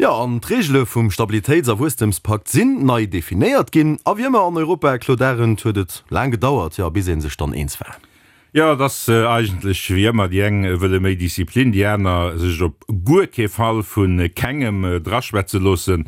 Jo, an d'Reegele vum Stabilitéits a Wuesstemspakt sinn nei definéiert ginn. A wéi ëmmer an Europa, Claude Arend, huet et laang gedauert, jo, bis ee sech dann eens war. Jo, et ass eigentlech wéi ëmmer, déi eng wëlle méi Disziplin, déi aner sech op guer kee Fall vu kengem draschwätze loossen.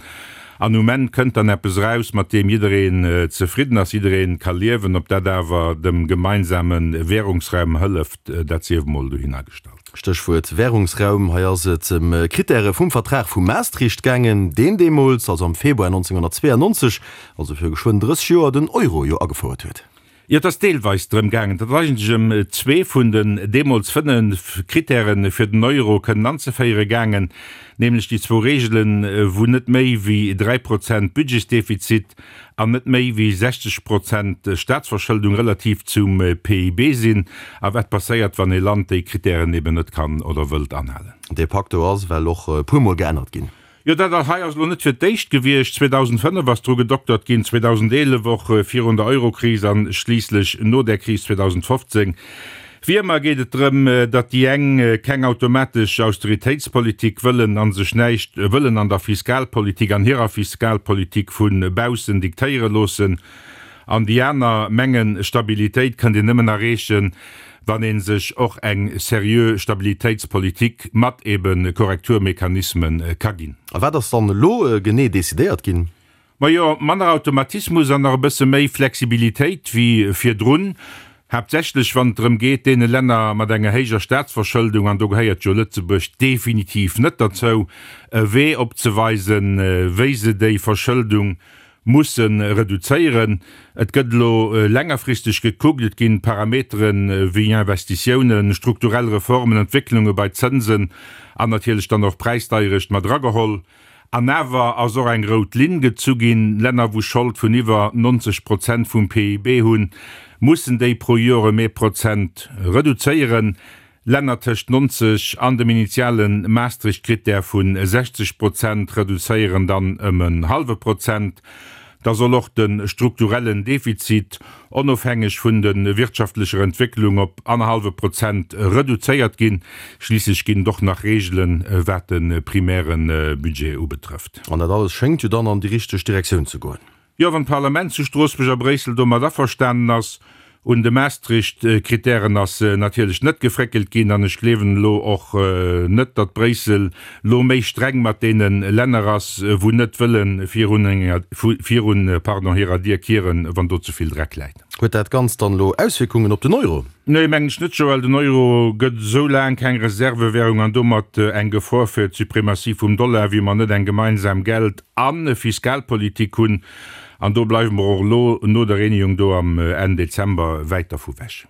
An um Enn kënnt dann eppes eraus, mat deem jiddereen zefridden ass, jidderee ka liewen. Ob dat awer dem gemeinsame Währungsraum hëlleft, dat sief emol dohinner gestallt. Stéchwuert Währungsraum, hei ass et ëm Krittäre vum Vertrag vu Maastricht gaangen, deen deemools, also am Februar 1992, also viru geschwënn 30 Joer, den Euro jo agefouert huet. Jo, et ass deelweis drëm gaangen, et ass eigentlech ëm zwee vun den deemools 5 Krittäre fir den Euro kënnen anzeféiere gaangen, nämlech déi zwou Reegelen, wou net méi wéi 3 Prozent Budgetsdefizit an net méi wéi 60 Prozent Staatsverschëldung relativ zum PIB sinn, a wat passéiert, wann ee Land déi Krittären eben net kann oder wëllt anhalen. Dee Pacto ass ewell och e puermol geännert ginn. Jo, dat hei ass elo net fir d'éischt gewiescht. 2005 ass dru gedoktert ginn, 2011 och, virun der Eurokris a schliisslech no där Kris 2015. Wéi ëmmer geet et drëm, datt déi eng keng automatesch Austeritéitspolitik wëllen a sech näischt wëllen an der Fiskalpolitik, an hirer Fiskalpolitik vu baussen diktéiere loossen, an déi aner mengen, Stabilitéit kënnt een nëmmen erreechen, wann ee sech och eng seriö Stabilitéitspolitik mat ebe Korrekturmechanisme ka ginn. A wat ass dann elo genee decidéiert ginn? Majo, manner Automatismus an nach e bësse méi Flexibilitéit wéi virdrun, haaptsächlech wann et drëm geet, deene Länner mat enger héijer Staatsverschëldung, an do gehéiert jo Lëtzebuerg definitiv net derzou, e Wee opzeweisen, wéi se déi Verschëldung Musse reduzéieren. Et gëtt elo längerfristeg gekuckt, et ginn Parametere wéi Investitiounen, strukturell Reformen, Entwécklunge bei Zënsen an natierlech dann och Präisdeierecht mat erageholl. An awer ass och eng rout Linn gezu ginn, Länner wou Schold vun iwwer 90 Prozent vum PIB hunn, mussen déi pro Joer ëm ee Prozent reduzéieren. Länner tëscht 90 an dem initiale Maastricht-Krittär vu 60 Prozent reduzéieren dann ëm en hallwe Prozent. Da soll och de strukturellen Defizit, onofhängeg vun de wirtschaftlecher Entwécklung, op annerhallwe Prozent reduzéiert ginn. Schliisslech ginn et och nach Reegelen, wat de primäre Budget ubetrëfft. An dat alles schéngt jo dann an déi richteg Direktioun ze goen. Jo, wann d'Parlament zu Stroossbuerg a Bréissel domat averstanen ass. Un de Maastricht-Kritären ass natierlech net gefréckelt ginn an ech gleewen elo och net, datt Bréissel lo méi streng mat deene Länner ass, wou net wëlle virun hirer Dier kieren, wann do ze vill Dreck läit. Huet dat Ganzt dann elo Auswierkungen op den Euro? Nee, mengen ech net, Joël. Den Euro gëtt esou laang keng Reservewährung an domat eng Gefor fir d'Suprematie vum Dollar, wéi mer net eng gemeinsam Geld a Fiskalpolitik hunn. An do bleiwe mer och elo no der Reunion do am Enn Dezember wäit dervu wech.